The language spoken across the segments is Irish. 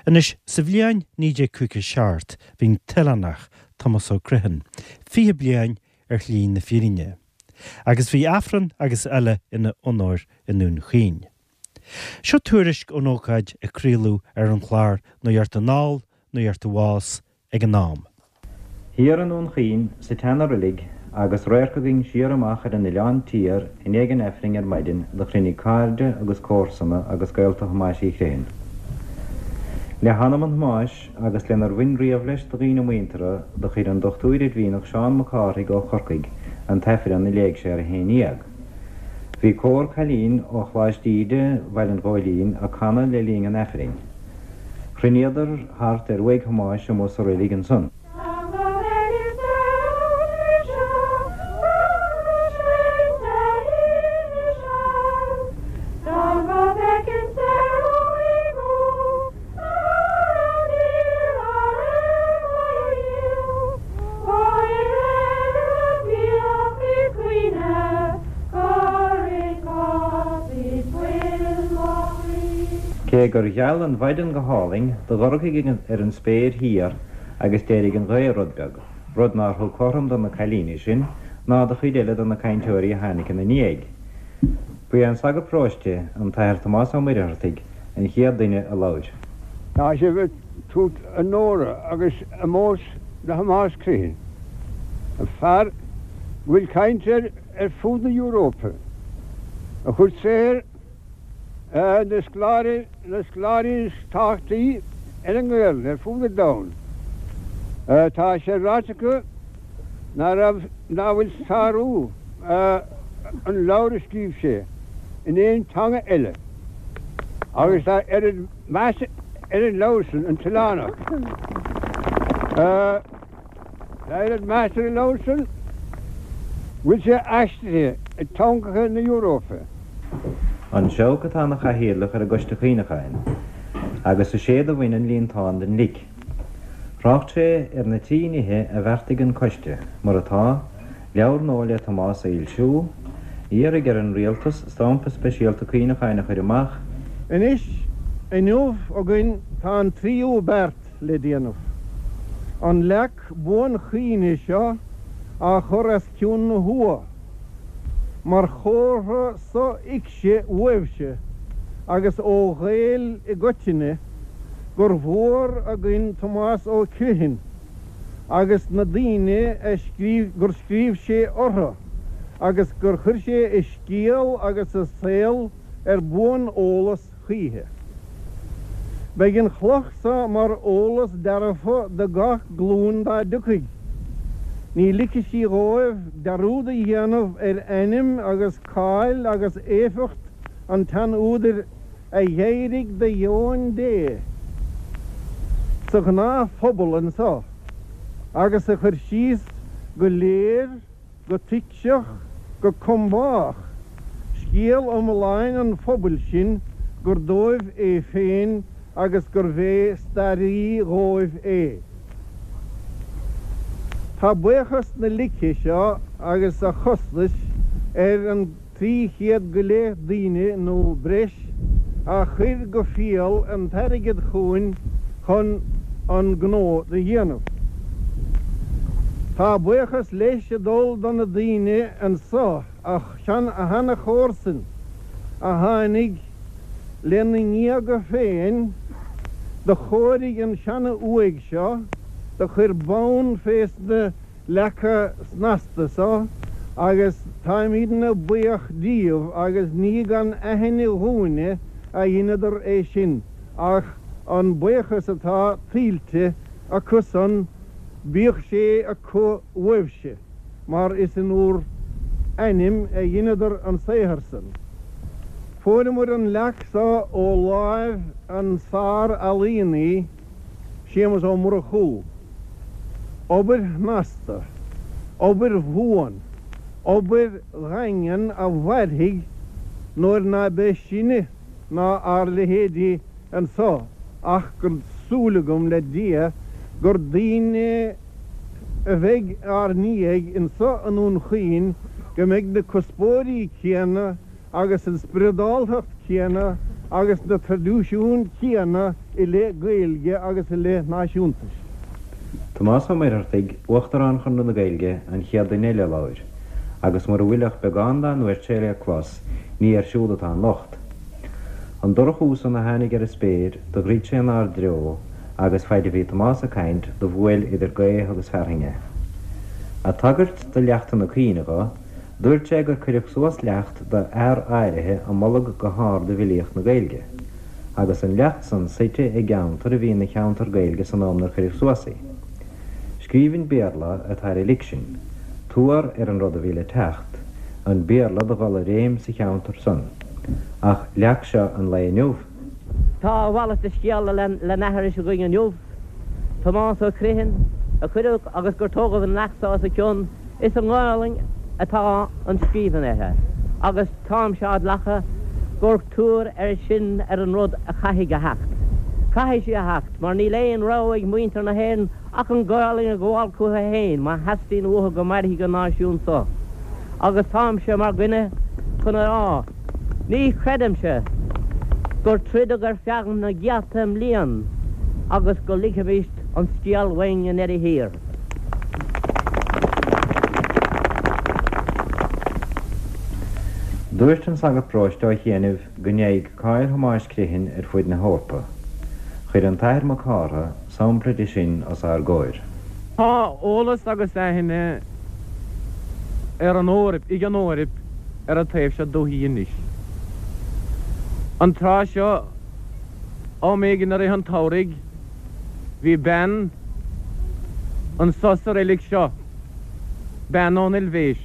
Anois, sa bhliain 1957 bhí an t-oileánach, Tomás Ó Criomhthain, 20 bliain ar shlí na fírinne. Agus bhí Aifreann agus eile ina onóir i nDún Chaoin. Seo tuairisc ón ócáid a craoladh ar an chlár Nuacht Anall, Nuacht Abhus ag an am. Thiar i nDún Chaoin, sa tseana-reilig, agus radharc againn siar amach ar an Oileán Tiar i ndiaidh an Aifrinn ar maidin do chruinnigh cairde agus comharsana agus gaolta Thomáis Uí Chriomhthain. Le hanam an Thomáis agus lenar bhain riamh leis do dhaoine muinteartha do chuir an Dochtúir Oirmhinneach Seán Mac Cárthaigh ó Chorcaigh an tAifreann a léigh sé ar a haon dhéag. Bhí cór cailín ó Choláiste Íde Bhaile an Ghóilín ag canadh le linn an Aifrinn. Chruinníodar thart ar uaigh Thomáis amuigh sa reilig ansan. Cé gur gheal an mhaidin go hálainn, do dhorchaigh ar an spéir thiar agus d'éirigh an ghaoth rud beag, rud nár thug cothrom do na cailíní sin ná do chuid eile de na cainteoirí a tháinig ina ndiaidh. Ba é an sagart paróiste, an tAthair Tomás Ó Muircheartaigh, an chéad duine a labhair. Tá sibh ag tabhairt onóra agus ómóis do Thomás Criomhthain, fear go bhfuil caint air ar fud na hEurópa, a chuir saothar na scoláirí, na scoláirí is tábhachtaí ar an nGaelainn ar fud an domhain. Tá sé ráite acu ná raibh, ná bhfuil sárú an leabhair a scríobh sé in aon teanga eile agus tá oiread meas ar an leabhar san, An tOileánach. Tá oiread meas ar an leabhar san go bhfuil sé aistrithe i dteangacha na Europa. An Seabhac atá ina chathaoirleach ar an gCoiste Cuimhneacháin agus is é do bhain an líontán den lic. Thrácht sé ar na trí nithe a bheartaigh an coiste, mar atá, leabhar nua le Tomás a fhoilsiú, iarraidh ar an Rialtas stampa speisialta cuimhneacháin a chur amach, Anois, inniu againn tá an tríú beart le déanamh, an leac buanchuimhne seo á chur os cionn na huaighe. Mar chomhartha sothuigse uaibhse agus ó Ghaeil i gcoitinne gur mhór againn Tomás Ó Criomhthain agus na daoine a scríobh gur scríobh sé orthu agus gur chuir sé a scéal agus a saol ar buan-eolas choíche. Beidh an chloch so mar eolas dearfa do gach glúin dá dtiocfaidh. Ní ligfidh sí dhóibh dearúd a dhéanamh ar ainm agus cáil agus éifeacht an tsean-údair a dh'éirigh de dheoin Dé sa ghnáthphobal anso agus a chuir síos go léir go tuigseach, go combách, scéal iomláin an phobail sin gur dóibh é féin agus gurbh é staraí dhóibh é. Tá buíochas na lice seo agus a chostais ar an 300 go leith daoine nó breis a chuir go fial an t-airgead chugainn chun an gnó do dhéanamh. Tá buíochas leis ag dul do na daoine anso, a sheana-chomharsain a tháinig lena ngéaga féin, do chóirigh an seana-uaigh seo, do chuir bonn fés na leaca snasta so agus táimídne buíoch díobh agus ní gan aithne dhúinne a dheineadar é sin ach an buíochas atá tuillte acu san bíodh sé acu uaibhse mar is in úr n-ainm a dheineadar an saothar san. Fuaireamair an leac so ó láimh an sár-ealaíonaí Séamus Ó Murchú. Obair shnasta, obair bhuan, obair dhaingean a mhairfidh nuair ná beidh sinne ná ár leithéidí anso ach gur súil agam le Dia gur daoine a bheidh ár ndiaidh anso i nDún Chaoin go mbeidh na cuspóirí céanna agus an spioradáltacht chéanna agus na traidisiúin chéanna. i leith Gaeilge agus i leith náisiúntais. Tomás Ó Muircheartaigh, Uachtarán Chonradh na Gaeilge, an chéad duine eile a labhair, agus mura bhfuil ach beagán dá ndúirt sé le clos, ní air siúd atá an locht. An dorchú san a tháinig ar an spéir, do dhruid sé inár dtreo, agus faid a bhí Tomás ag caint, do bhuail idir gaoth agus fearthainn é. Ag tagairt do leachtanna cuimhne dho, dúirt sé gur cuireadh suas leacht do fhear áirithe a moladh go hard i bhfilíocht na Gaeilge, agus an leacht san suite i gceantar a bhí ina cheantar Gaeilge san am 'nar cuireadh suas í. Scríbhinn Béarla atá ar an lic sin, tuar ar an rud a bhí le teacht, an Béarla do dhul i réim sa cheantar san. Ach leac seo an lae inniu? Tá a mhalairt de scéal le n-aithris againn inniu. Tomás Ó Criomhthain, a cuireadh agus gur tógadh an leacht so os a cionn, is i nGaolainn atá an scríbhinn uirthi, agus táimse á glacadh gur tuar é sin ar an rud a chaithfidh a theacht. Caithfidh sí a theacht, mar níl aon rogha ag muintir na hÉireann ach an Ghaolainn a ghabháil chucu féin má theastaíonn uathu go mairfidh an náisiún so. Agus táimse mar dhuine chun a rá, ní chreidimse gur troideadh ar feadh na gcéadta mblian agus go ligfimist an scéal uainn i ndeireadh thiar. Dúirt an sagart paróiste ó chianaibh go ndeaghaidh cáil Thomáis Criomhthain ar fuaid na hEorpa. Chuir an tAthair Mac Cártha sampla de sin os ár gcomhair. Tá eolas agus aithne ar an Eoraip, ag an Eoraip ar an taobh seo dúthaí anois. An tráth seo, am éigin i rith an tsamhraidh, bhí bean anso sa reilig seo, bean ón Eilvéis,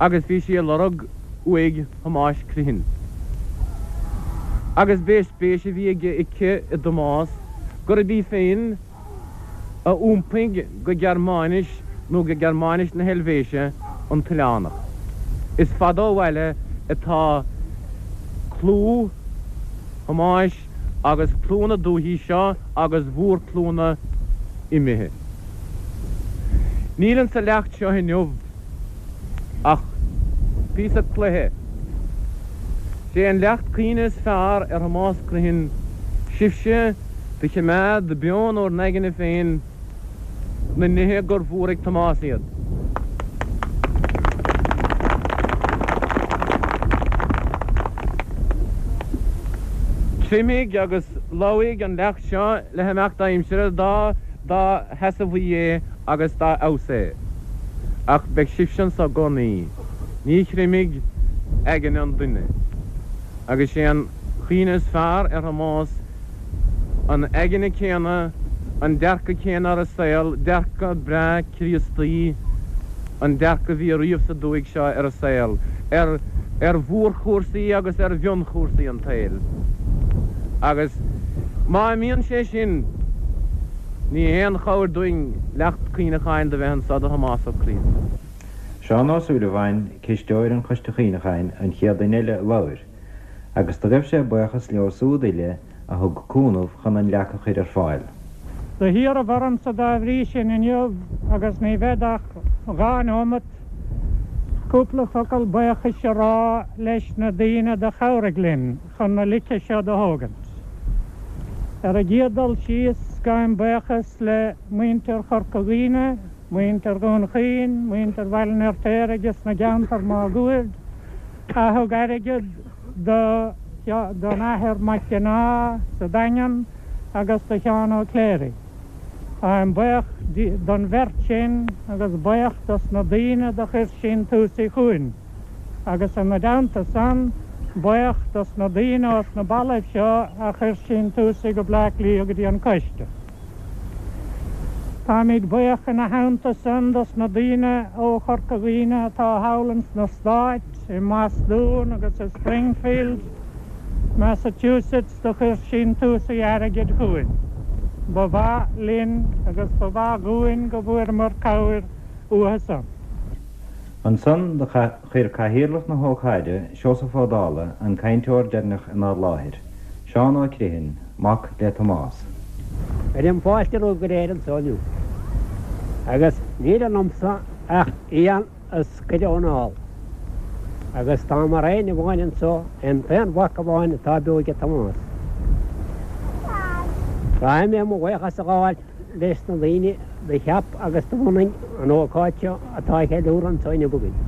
agus bhí sí ag lorg uaigh Thomáis Criomhthain. Agus b'é spéis a bhí aige aici i dTomás gurb í féin a iompaigh go Gearmáinis nó go Gearmáinis na hEilvéise an t-oileánach. Is fada ó bhaile atá clú Thomáis agus clú na dúichí seo agus mhórchlúnna imithe. Níl insa leacht seo inniu ach píosa cloiche. Sé an leacht cuimhne is fearr ar Thomás Criomhthain sibhse do chimeád beo in bhur n-aigne féin na nithe gur mhór ag Tomás iad. Creimfidh agus lobhfaidh an leacht seo le himeacht aimsire dá dá sheasamhaí é agus dá fheabhas é. Ach beidh sibhse anso i gcónaí. Ní chreimfidh aigne an duine. Agus sé an chuimhne is fearr ar Thomás an aigne céanna, an dearcadh céanna ar an saol, dearcadh breá Críostaí, an dearcadh a bhí ariamh sa dúthaigh seo ar an saol, ar ar mhórchúrsaí agus ar mhionchúrsaí an tsaoil. Agus má imíonn sé sin, ní haon chabhair dúinn leacht cuimhneacháin do bheith anso do Thomás Ó Criomhthain. Seán Ó Súilleabháin, cisteoir an Choiste Chuimhneacháin, an chéad duine eile a labhair, agus do ghaibh sé buíochas leo súd uile a thug cúnamh chun an leac a chuir ar fáil. Do hiarraibh ormsa dá bhrí sin inniu, agus ní bhead ach dha neomat, cúpla focal baochais a rá leis na daoine do chabhraigh linn chun na lice seo do thógaint. Ar an gcéad dul síos, gabhaim baochas le muintir Chorca Dhuibhne, muintir Dhún Chaoin, muintir Bhaile an Fheirtéaraigh is na gceantar máguaird, a thug airgead do don Athair Mac Cionnaith sa Daingean agus do Sheán Ó Cléirigh. Táim buíoch don bheirt sin agus buíoch dos na daoine do chuir síntiúsaí chugainn agus ina dteannta san, buíoch dos na daoine ós na ballaibh seo a chuir síntiúsaí go Bleá Cliath go dtí an Coiste. Táimid buíoch ina theannta san dos na daoine ó Chorca Dhuibhne atá thall ins na Stáit, i mBostún agus i Springfield, Massachusetts do chuir síntiúsaí airgid chugainn. Ba mhaith linn agus ba mhaith dhúinn go bhfuaireamar cabhair uathu san. Ansan do chuir cathaoirleach na hócáide, Seosamh Ó Dálaigh, an cainteoir deireanach inár láthair, Seán Ó Criomhthain, mac le Tomás. Cuirim fáilte romhaibh go léir anso inniu, agus níl ionamsa ach éan a scoireadh ón ál, agus tá mar éinne amháin anso, an t-aon mhac amháin atá beo aige Tomás. Caithfidh mé mo bhuíochas a ghabháil leis na daoine do cheap agus do bhunaigh an ócáid seo atá á cheiliúradh anso inniu againn.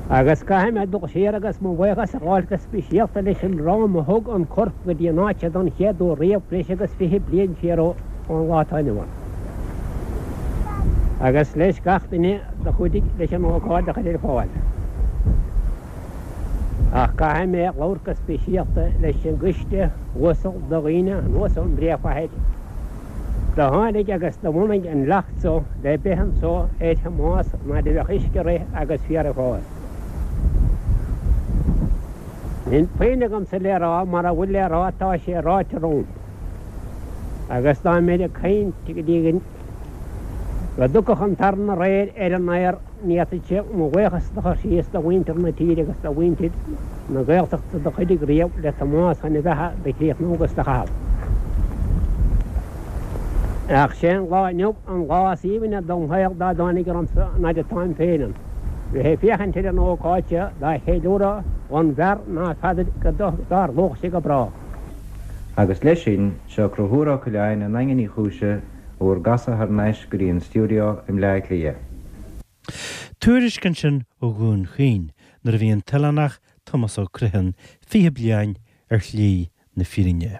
Agus caithfidh mé dul siar agus mo bhuíochas a ghabháil go speisialta leis an dream a thug an corp go dtí an áit seo don chéad uair riamh breis agus 20 bliain siar ón lá atá inniu ann. Agus leis gach duine do chuidigh leis an ócáid a chur ar fáil. Ach caithfidh mé labhairt go speisialta leis an gcoiste uasal de dhaoine anuas ón bpríomhchathair do tháinig agus do bhunaigh an leacht so le beith anso ar Thomás an fhaid a bheadh uisce ag rith agus féar ag fás. Níl puinn agamsa le rá, mara bhfuil le rá tá sé ráite romham. Agus dá mbeinn ag caint go dtí go dtiocfadh an taran aréir ar an aer, Ní fhéadfainnse mo bhuíochas do chur síos do mhuintir na tíre agus do mhuintir na Gaeltachta do chuidigh riamh le Tomás chun a bheatha do chríochnú agus do chaitheamh. Ach sé an lá inniu an lá is aoibhne dom shaol dá dtáinig ormsa an fhaid atáim féin ann, bheith ag féachaint ar an ócáid seo dá cheiliúradh dhon bhfear ná feadair go dtarlódh sé go brách. Agus leis sin, seo Conchúr Ó Coileáin i nDaingean Uí Chúise bhur gcasadh thar n-ais go dtí an stiúideo i mBleá Cliath. Tuairisc ansin ó Dhún Chaoin nuair a bhí an t-oileánach Tomás Ó Criomhthain 20 bliain ar shlí na fírinne.